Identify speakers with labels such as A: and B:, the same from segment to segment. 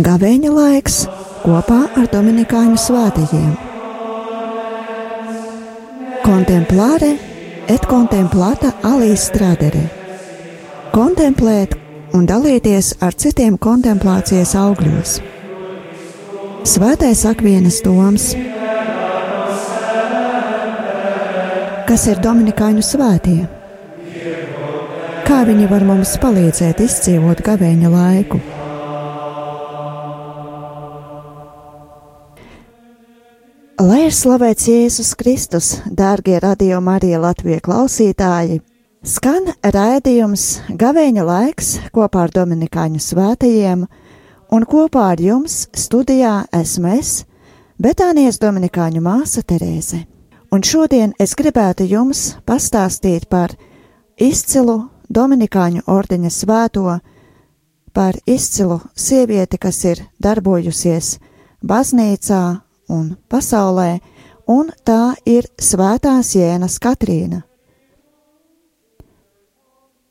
A: Gavēņa laiks kopā ar dominikāņu svētajiem. Contemplare et contemplata alis tradere. Kontemplēt un dalīties ar citiem kontemplācijas augļos. Svētais Akvīnas Toms. Kas ir dominikāņu svētie? Kā viņi var mums palīdzēt izdzīvot gavēņa laiku? Lai ir slavēts Jēzus Kristus, dārgie Radio Marija Latvijas klausītāji! Skan raidījums Gavēņa laiks kopā ar dominikāņu svētajiem, un kopā ar jums studijā esmu es, Betānijas dominikāņu māsa Terēze. Un šodien es gribētu jums pastāstīt par izcilu dominikāņu ordeņa svēto, par izcilu sievieti, kas ir darbojusies baznīcā un pasaulē, un tā ir Svētās Jēnas Katrīna,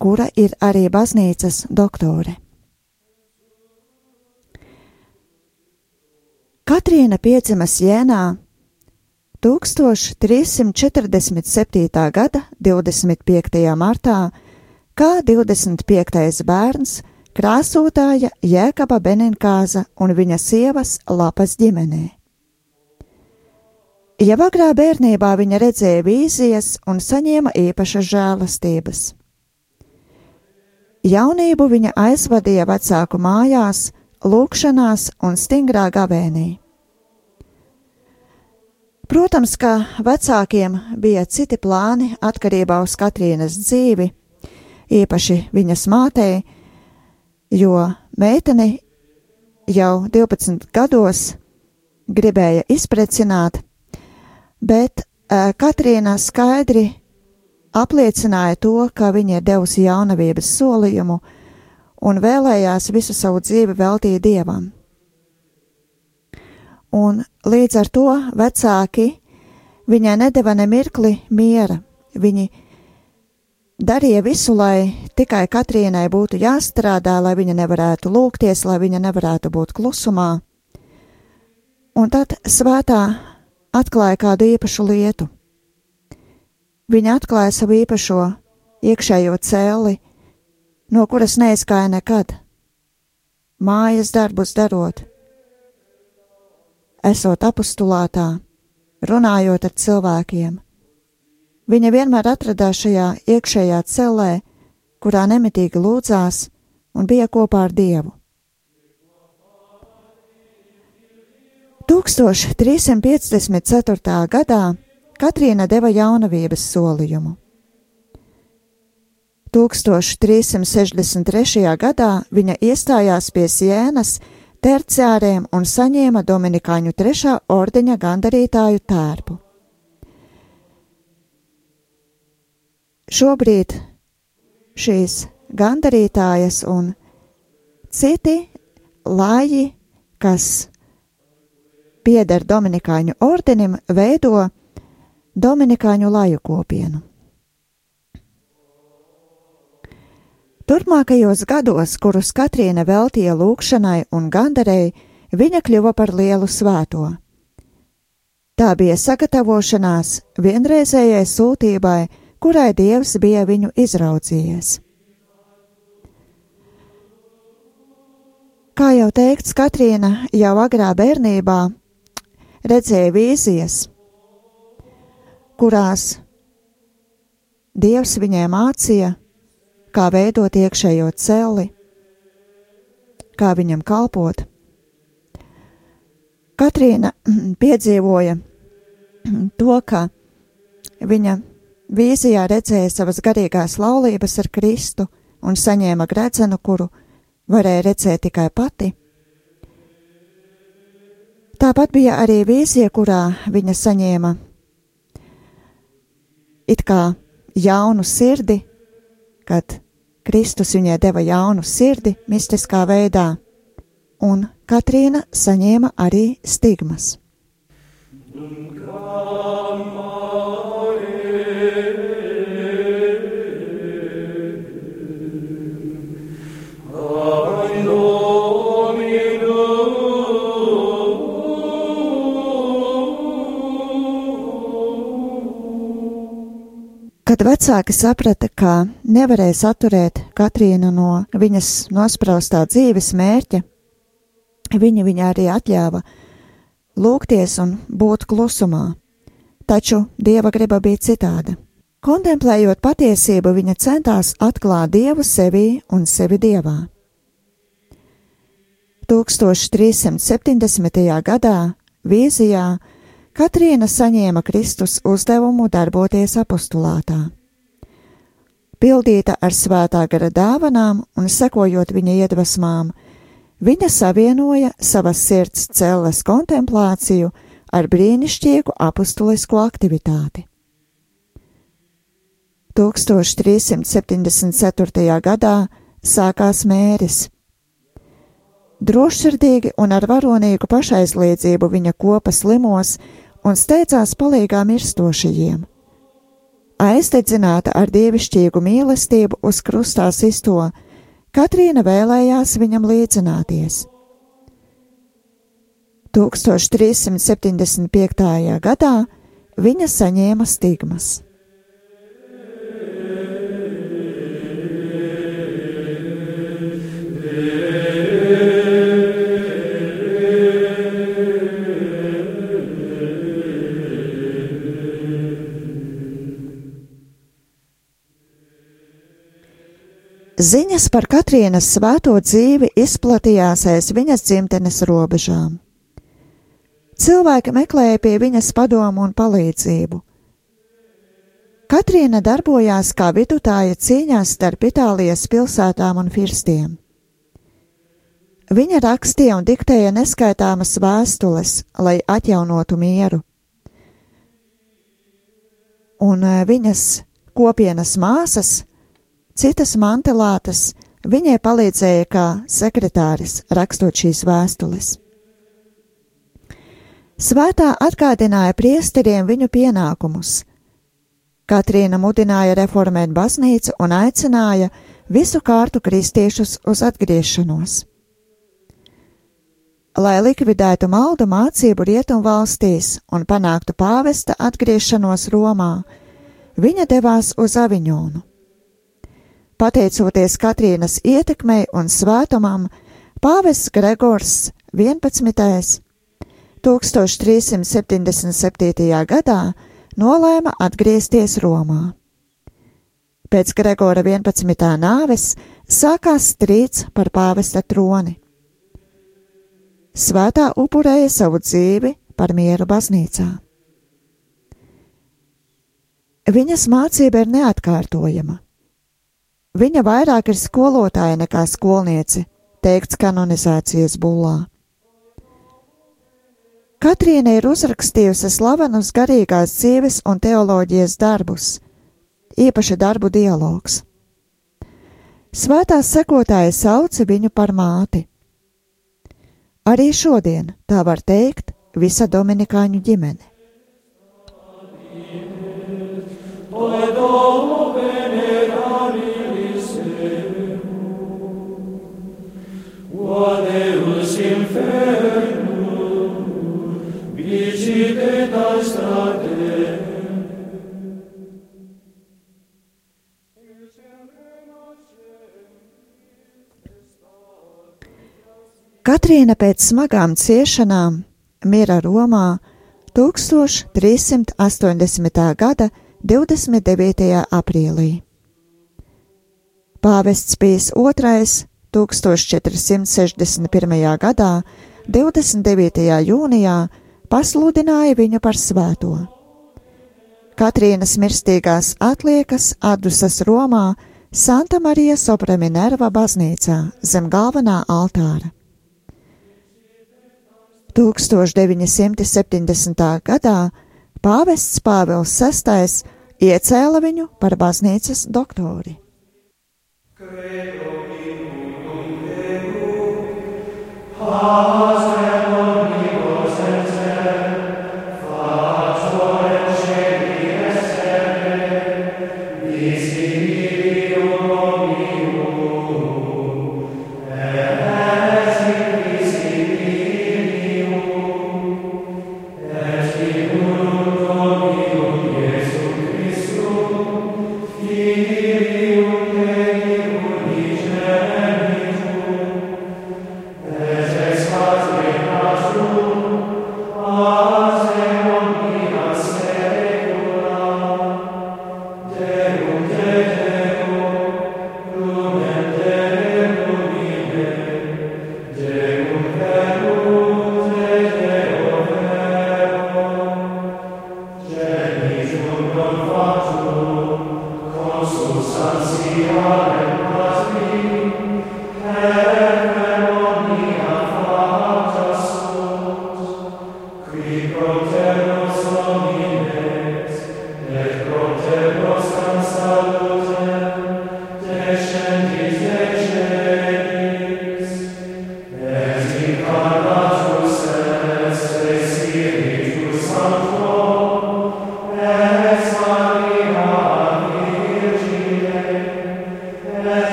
A: kura ir arī baznīcas doktore. Katrīna piedzimas Jēnā 1347. gada 25. martā, kā 25. bērns krāsotāja Jēkaba Beninkāza un viņa sievas Lapas ģimenē. Jau agrā bērnībā viņa redzēja vīzijas un saņēma īpašas žēlastības. Jaunību viņa aizvadīja vecāku mājās, lūgšanās un stingrā gavēnī. Protams, ka vecākiem bija citi plāni atkarībā uz Katrīnas dzīvi, īpaši viņas mātei, jo meiteni jau 12 gados gribēja izprecināt, bet Katrīna skaidri apliecināja to, ka viņa ir devusi jaunavības solījumu un vēlējās visu savu dzīvi veltīt Dievam. Un līdz ar to vecāki viņai nedeva ne mirkli miera. Viņi darīja visu, lai tikai Katrīnai būtu jāstrādā, lai viņa nevarētu lūgties, lai viņa nevarētu būt klusumā. Un tad svētā atklāja kādu īpašu lietu. Viņa atklāja savu īpašo iekšējo cēli, no kuras neizgāja nekad, mājas darbus darot, esot apostulātā, runājot ar cilvēkiem. Viņa vienmēr atradās šajā iekšējā celē, kurā nemitīgi lūdzās un bija kopā ar Dievu. 1354. gadā Katrīna deva jaunavības solījumu. 1363. gadā viņa iestājās pie Jēnas terciāriem un saņēma dominikāņu 3. ordeņa gandarītāju tērpu. Šobrīd šīs gandarītājas un citi lāji, kas pieder dominikāņu ordenim, veido dominikāņu laju kopienu. Turpmākajos gados, kurus Katrīna veltīja lūgšanai un gandarei, viņa kļuva par lielu svēto. Tā bija sagatavošanās vienreizējai sūtībai, kurai Dievs bija viņu izraudzījies. Kā jau teikts, Katrīna jau agrā bērnībā redzēja vīzijas, kurās Dievs viņai mācīja, kā veidot iekšējo celi, kā viņam kalpot. Katrīna piedzīvoja to, ka viņa vīzijā redzēja savas garīgās laulības ar Kristu un saņēma gredzenu, kuru varēja redzēt tikai pati. Tāpat bija arī vīzija, kurā viņa saņēma it kā jaunu sirdi, kad Kristus viņai deva jaunu sirdi mistiskā veidā, un Katrīna saņēma arī stigmas. Kad vecāki saprata, ka nevarēs atturēt Katrīnu no viņas nospraustā dzīves mērķa, viņi arī atļāva lūgties un būt klusumā, taču Dieva griba bija citāda. Kontemplējot patiesību, viņa centās atklāt Dievu sevī un sevi Dievā. 1370. gadā vīzijā Katrīna saņēma Kristus uzdevumu darboties apostulātā. Pildīta ar svētā gara dāvanām un sekojot viņa iedvesmām, viņa savienoja savas sirds celles kontemplāciju ar brīnišķīgu apostulisko aktivitāti. 1374. gadā sākās mēris. Drošsirdīgi un ar varonīgu pašaizliedzību viņa kopa slimos un steidzās palīgā mirstošajiem. Aizdedzināta ar dievišķīgu mīlestību uz krustā sisto, Katrīna vēlējās viņam līdzināties. 1375. gadā viņa saņēma stigmas. Ziņas par Katrīnas svēto dzīvi izplatījās aiz viņas dzimtenes robežām. Cilvēki meklēja pie viņas padomu un palīdzību. Katrīna darbojās kā vidutāja cīņās starp Itālijas pilsētām un firstiem. Viņa rakstīja un diktēja neskaitāmas vēstules, lai atjaunotu mieru. Un viņas kopienas māsas, citas mantelātas, viņai palīdzēja kā sekretāris rakstot šīs vēstules. Svētā atgādināja priesteriem viņu pienākumus. Katrīna mudināja reformēt baznīcu un aicināja visu kārtu kristiešus uz atgriešanos. Lai likvidētu maldu mācību rietumvalstīs un panāktu pāvesta atgriešanos Romā, viņa devās uz Aviņonu. Pateicoties Katrīnas ietekmei un svētumam, pāvests Gregors 11. 1377. gadā nolēma atgriezties Romā. Pēc Gregora 11. nāves sākās strīds par pāvesta troni. Svētā upurēja savu dzīvi par mieru baznīcā. Viņas mācība ir neatkārtojama. Viņa vairāk ir skolotāja nekā skolniece, teikts kanonizācijas bullā. Katrīna ir uzrakstījusi slavenus garīgās dzīves un teoloģijas darbus, īpaši darbu dialogs. Svētās sekotāji sauca viņu par māti. Arī šodien tā var teikt visa dominikāņu ģimene.
B: Deus infernum, vicite strate.
A: Katrīna pēc smagām ciešanām mira Romā 1380. gada 29. aprīlī. Pāvests Pijs II 1461. gadā 29. jūnijā pasludināja viņu par svēto. Katrīnas mirstīgās atliekas atdusas Romā Santa Marija Sopra Minerva baznīcā zem galvenā altāra. 1970. gadā pāvests Pāvils VI iecēla viņu par baznīcas doktori.
B: Has omnibus et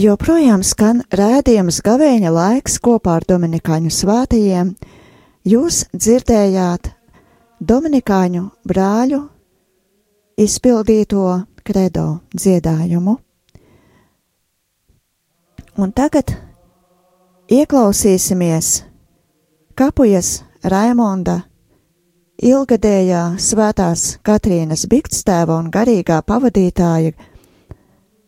A: Joprojām skan rādījums Gavēņa laiks kopā ar Dominikāņu svētajiem. Jūs dzirdējāt Dominikāņu brāļu izpildīto kredo dziedājumu. Un tagad ieklausīsimies Kapujas Raimonda ilgadējā svētās Katrīnas Bikstēva un garīgā pavadītāja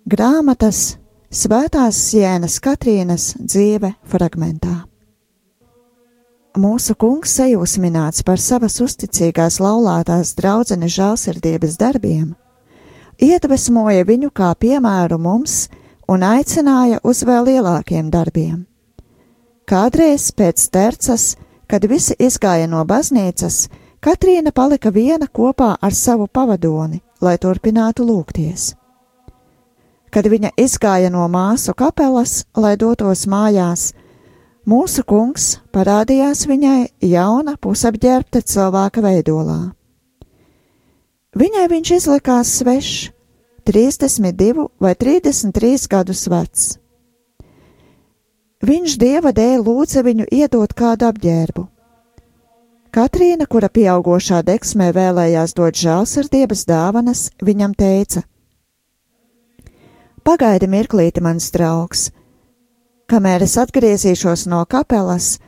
A: grāmatas Svētās Sienas Katrīnas dzīve fragmentā. Mūsu kungs sajūsmināts par savas uzticīgās laulātās draudzenes žēlsirdības darbiem, iedvesmoja viņu kā piemēru mums un aicināja uz vēl lielākiem darbiem. Kādreiz pēc tercas, kad visi izgāja no baznīcas, Katrīna palika viena kopā ar savu pavadoni, lai turpinātu lūgties. Kad viņa izgāja no māsu kapelas, lai dotos mājās, mūsu kungs parādījās viņai jauna pusapģērbta cilvēka veidolā. Viņai viņš izlikās svešs, 32 vai 33 gadus vecs. Viņš Dieva dēļ lūdza viņu iedot kādu apģērbu. Katrīna, kura pieaugošā deksmē vēlējās dot žēlsirdības dāvanas, viņam teica: Pagaidi mirklīti, mans draugs, kamēr es atgriezīšos no kapelas,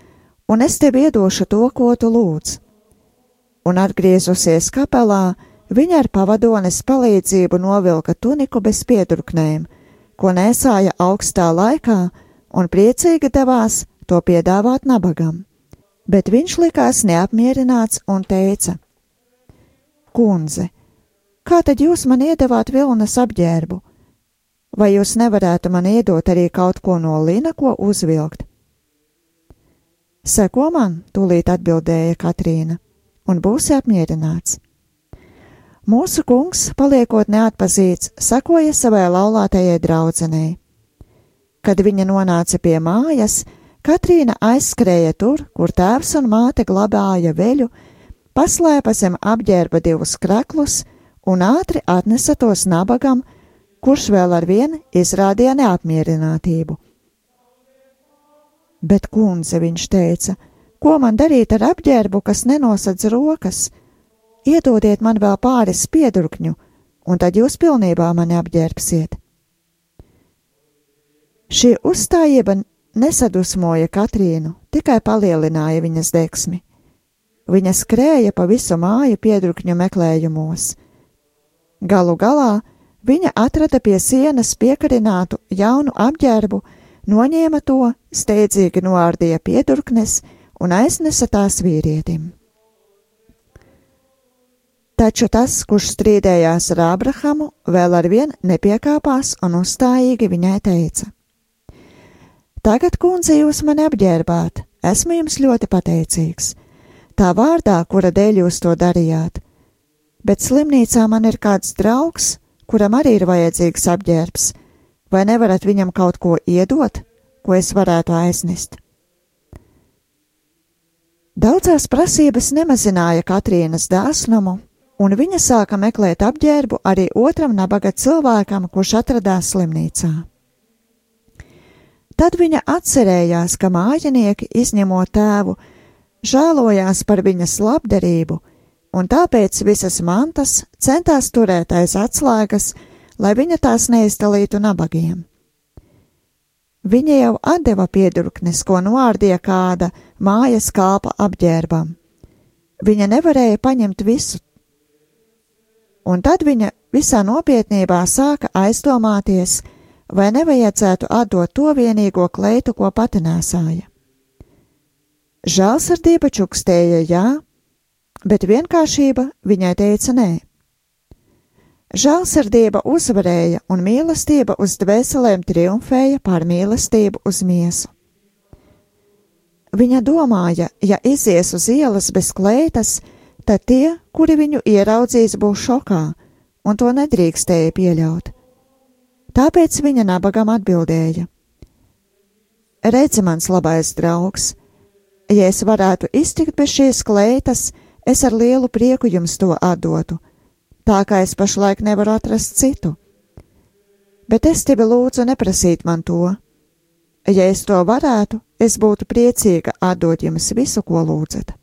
A: un es tev iedošu to, ko tu lūdz. Un atgriezusies kapelā, viņa ar pavadones palīdzību novilka tuniku bez piedurknēm, ko nēsāja augstā laikā, un priecīgi devās to piedāvāt nabagam. Bet viņš likās neapmierināts un teica: Kundze, kā tad jūs man iedevāt vilnas apģērbu? Vai jūs nevarētu man iedot arī kaut ko no lina, ko uzvilkt? Seko man, tūlīt atbildēja Katrīna, un būsi apmierināts. Mūsu kungs, paliekot neatpazīts, sekoja savai laulātajai draudzenei. Kad viņa nonāca pie mājas, Katrīna aizskrēja tur, kur tēvs un māte glabāja veļu, paslēpa zem apģērba 2 kraklus un ātri atnesa tos nabagam, kurš vēl ar vienu izrādīja neapmierinātību. Bet, kundze, viņš teica, ko man darīt ar apģērbu, kas nenosadz rokas? Iedodiet man vēl pāris piedurkņu, un tad jūs pilnībā mani apģērbsiet. Šī uzstājība nesadusmoja Katrīnu, tikai palielināja viņas degsmi. Viņa skrēja pa visu māju piedurkņu meklējumos. Galu galā viņa atrada pie sienas piekarinātu jaunu apģērbu, noņēma to, steidzīgi noārdīja piedurknes un aiznesa tās vīrietim. Taču tas, kurš strīdējās ar Ābrahamu, vēl arvien nepiekāpās un uzstājīgi viņai teica: Tagad, kundze, jūs mani apģērbāt, esmu jums ļoti pateicīgs, tā vārdā, kura dēļ jūs to darījāt, bet slimnīcā man ir kāds draugs, kuram arī ir vajadzīgs apģērbs, vai nevarat viņam kaut ko iedot, ko es varētu aiznest? Daudzās prasības nemazināja Katrīnas dāsnumu, un viņa sāka meklēt apģērbu arī otram nabaga cilvēkam, kurš atradās slimnīcā. Tad viņa atcerējās, ka mājinieki, izņemot tēvu, žēlojās par viņas labdarību, un tāpēc visas mantas centās turēt aiz atslēgas, lai viņa tās neizdalītu nabagiem. Viņa jau atdeva piedurknes, ko noārdīja kāda mājas kalpa apģērbam. Viņa nevarēja paņemt visu, un tad viņa visā nopietnībā sāka aizdomāties, vai nevajadzētu atdot to vienīgo kleitu, ko pati nēsāja. Žēlsirdība čukstēja jā, bet vienkāršība viņai teica nē. Žēlsirdība uzvarēja un mīlestība uz dvēselēm triumfēja pār mīlestību uz miesu. Viņa domāja, ja izies uz ielas bez kleitas, tad tie, kuri viņu ieraudzīs, būs šokā, un to nedrīkstēja pieļaut. Tāpēc viņa nabagam atbildēja: Redzi, mans labais draugs, ja es varētu iztikt bez šīs kleitas, es ar lielu prieku jums to atdotu, tā kā es pašlaik nevaru atrast citu. Bet es tevi lūdzu neprasīt man to. Ja es to varētu, es būtu priecīga atdot jums visu, ko lūdzat.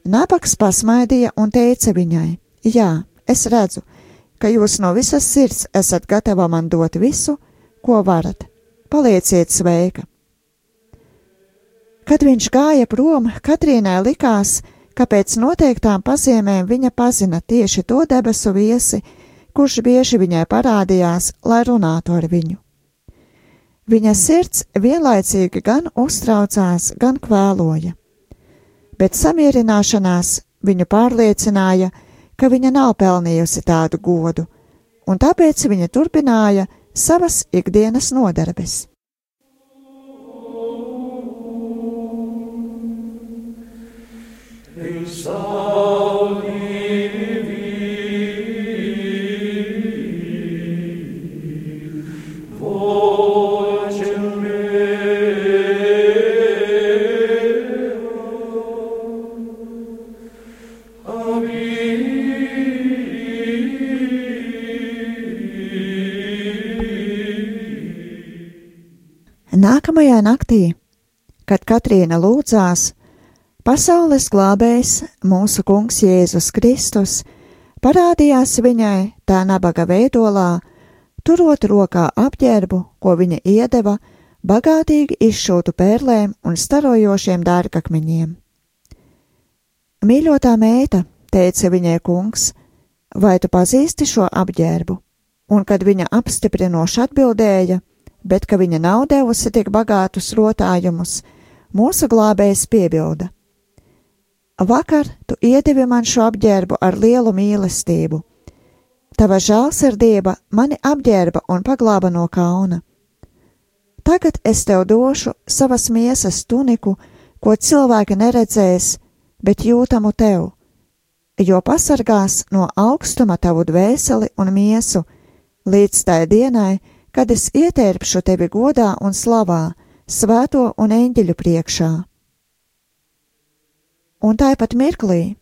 A: Nabags pasmaidīja un teica viņai: Jā, es redzu, ka jūs no visas sirds esat gatava man dot visu, ko varat. Palieciet sveika. Kad viņš gāja prom, Katrīnai likās, ka pēc noteiktām pazīmēm viņa pazina tieši to debesu viesi, kurš bieži viņai parādījās, lai runātu ar viņu. Viņa sirds vienlaicīgi gan uztraucās, gan kvēloja, bet samierināšanās viņu pārliecināja, ka viņa nav pelnījusi tādu godu, un tāpēc viņa turpināja savas ikdienas nodarbes. Nākamajā naktī, kad Katrīna lūdzās, pasaules glābējs, mūsu kungs Jēzus Kristus, parādījās viņai tā nabaga veidolā, turot rokā apģērbu, ko viņa iedeva, bagātīgi izšūtu pērlēm un starojošiem dārgakmeņiem. Mīļotā meita, teica viņai kungs, vai tu pazīsti šo apģērbu? Un kad viņa apstiprinoši atbildēja, bet ka viņa nav devusi tik bagātus rotājumus, mūsu glābējs piebilda: Vakar tu iedevi man šo apģērbu ar lielu mīlestību. Tava žēlsirdība mani apģērba un paglāba no kauna. Tagad es tev došu savas miesas tuniku, ko cilvēki neredzēs, bet jūtamu tev, jo pasargās no augstuma tavu dvēseli un miesu, līdz tai dienai, kad es ietērpšu tevi godā un slavā, svēto un eņģeļu priekšā. Un tāpat mirklī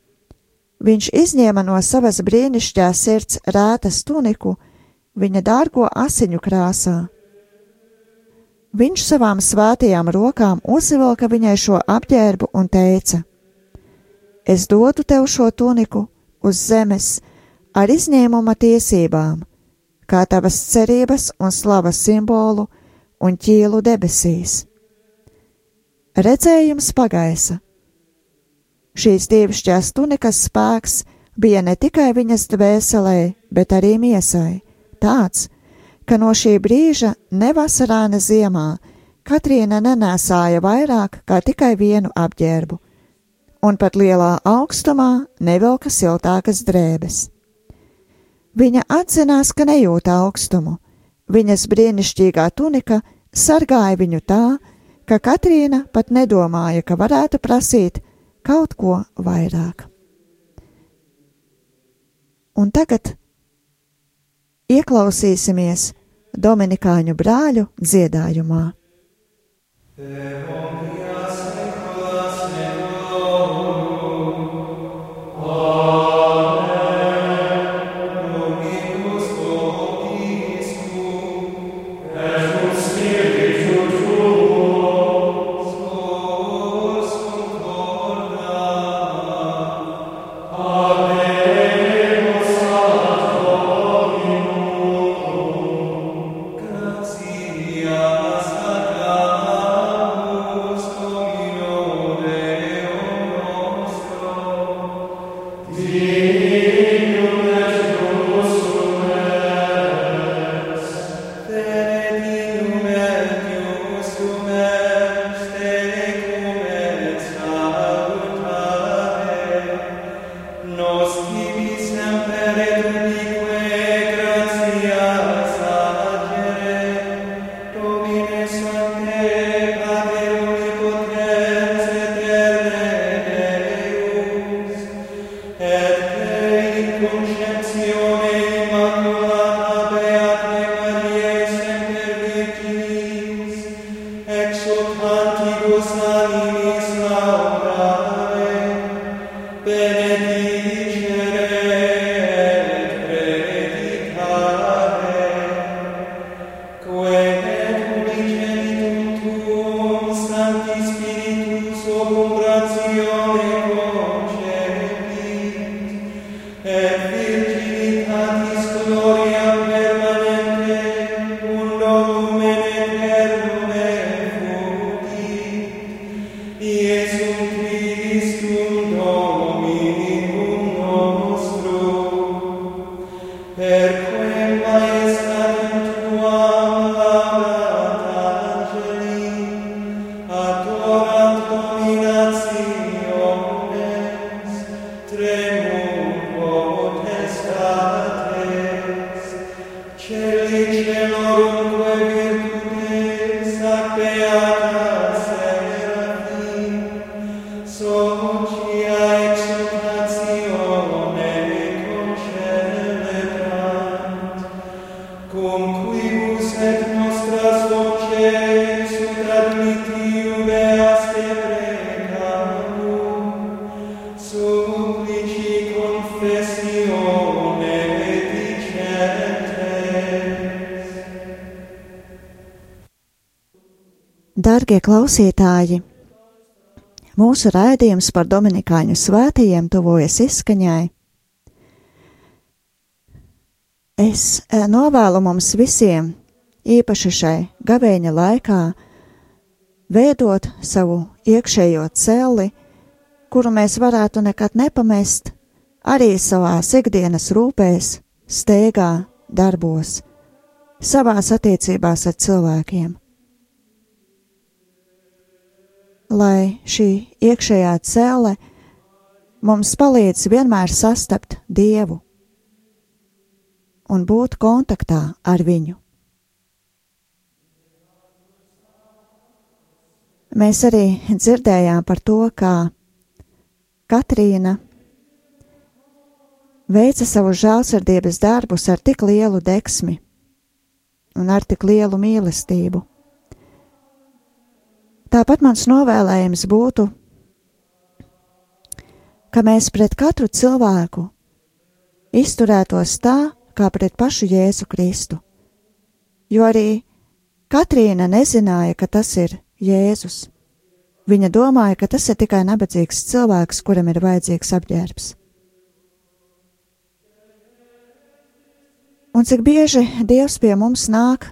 A: viņš izņēma no savas brīnišķīgās sirds rētas tuniku viņa dārgo asiņu krāsā. Viņš savām svētajām rokām uzvilka viņai šo apģērbu un teica: Es dodu tev šo tuniku uz zemes ar izņēmuma tiesībām, kā tavas cerības un slavas simbolu un ķīlu debesīs. Redzējums pagaisa. Šīs dievišķās tunikas spēks bija ne tikai viņas dvēselē, bet arī miesai, tāds, ka no šī brīža ne vasarā, ne ziemā Katrīna nenēsāja vairāk kā tikai vienu apģērbu, un pat lielā augstumā nevilka siltākas drēbes. Viņa atzinās, ka nejūt augstumu. Viņas brīnišķīgā tunika sargāja viņu tā, ka Katrīna pat nedomāja, ka varētu prasīt kaut ko vairāk. Un tagad ieklausīsimies dominikāņu brāļu dziedājumā. Dargie klausītāji, mūsu raidījums par dominikāņu svētajiem tuvojas izskaņai. Es novēlu mums visiem, īpaši šai gavēņa laikā, veidot savu iekšējo celli, kuru mēs varētu nekad nepamest, arī savās ikdienas rūpēs, steigā, darbos, savās attiecībās ar cilvēkiem. Lai šī iekšējā celle mums palīdz vienmēr sastapt Dievu un būt kontaktā ar viņu. Mēs arī dzirdējām par to, kā Katrīna veica savu žēlsirdības darbus ar tik lielu deksmi un ar tik lielu mīlestību. Tāpat mans novēlējums būtu ka mēs pret katru cilvēku izturētos tā, kā pret pašu Jēzu Kristu, jo arī Katrīna nezināja, ka tas ir Jēzus. Viņa domāja, ka tas ir tikai nabadzīgs cilvēks, kuram ir vajadzīgs apģērbs. Un cik bieži Dievs pie mums nāk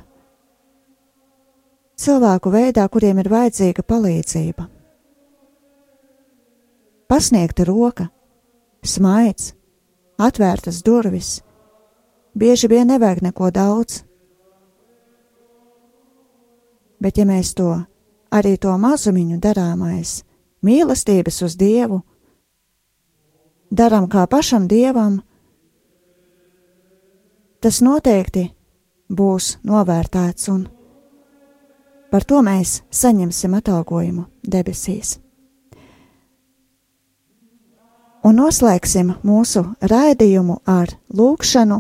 A: cilvēku veidā, kuriem ir vajadzīga palīdzība. Pasniegta roka, smaids, atvērtas durvis, bieži vien nevajag neko daudz. Bet ja mēs arī to mazumiņu darāmais, mīlestības uz Dievu, daram kā pašam Dievam, tas noteikti būs novērtēts un par to mēs saņemsim atalgojumu debesīs. Un noslēgsim mūsu raidījumu ar lūgšanu,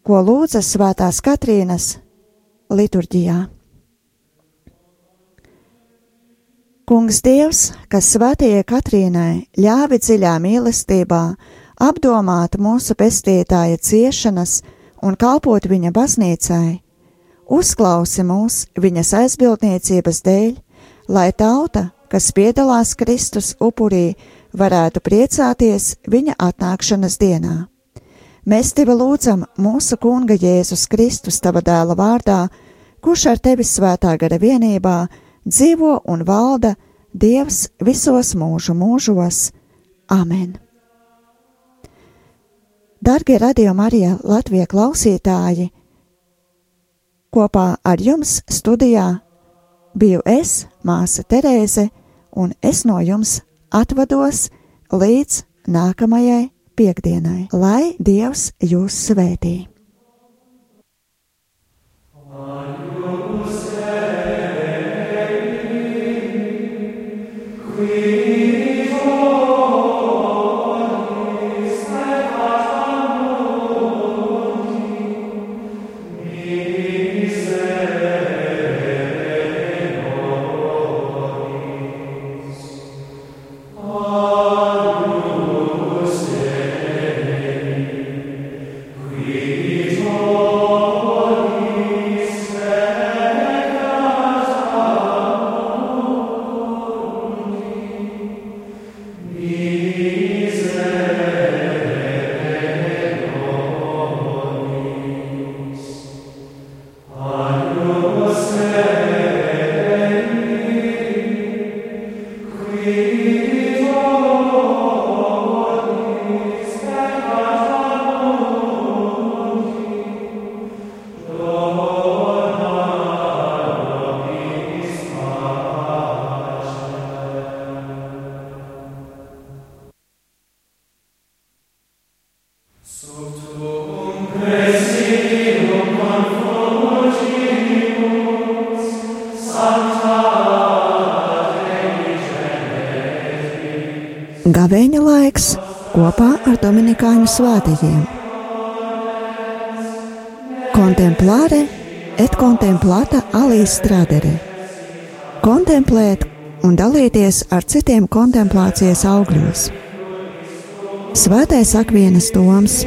A: ko lūdza Svētās Katrīnas liturģijā. Kungs Dievs, kas Svētajai Katrīnai ļāvi dziļā mīlestībā apdomāt mūsu pestītāja ciešanas un kalpot viņa baznīcai, uzklausi mūs viņas aizbildniecības dēļ, lai tauta, kas piedalās Kristus upurī, varētu priecāties viņa atnākšanas dienā. Mēs tevi lūdzam mūsu Kunga Jēzus Kristus tava dēla vārdā, kurš ar tevi svētā gara vienībā dzīvo un valda Dievs visos mūžu mūžos. Amen. Dargie Radio Marija Latvijas klausītāji, kopā ar jums studijā biju es, māsa Terēze, un es no jums atvados līdz nākamajai piektdienai, lai Dievs jūs svētī. Gavēņa laiks kopā ar dominikāņu svētajiem. Contemplare et contemplata alis tradere. Kontemplēt un dalīties ar citiem kontemplācijas augļos. Svētais Akvīnas Toms.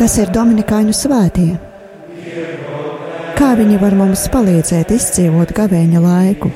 A: Kas ir dominikāņu svētie? Kā viņi var mums palīdzēt izdzīvot gavēņa laiku?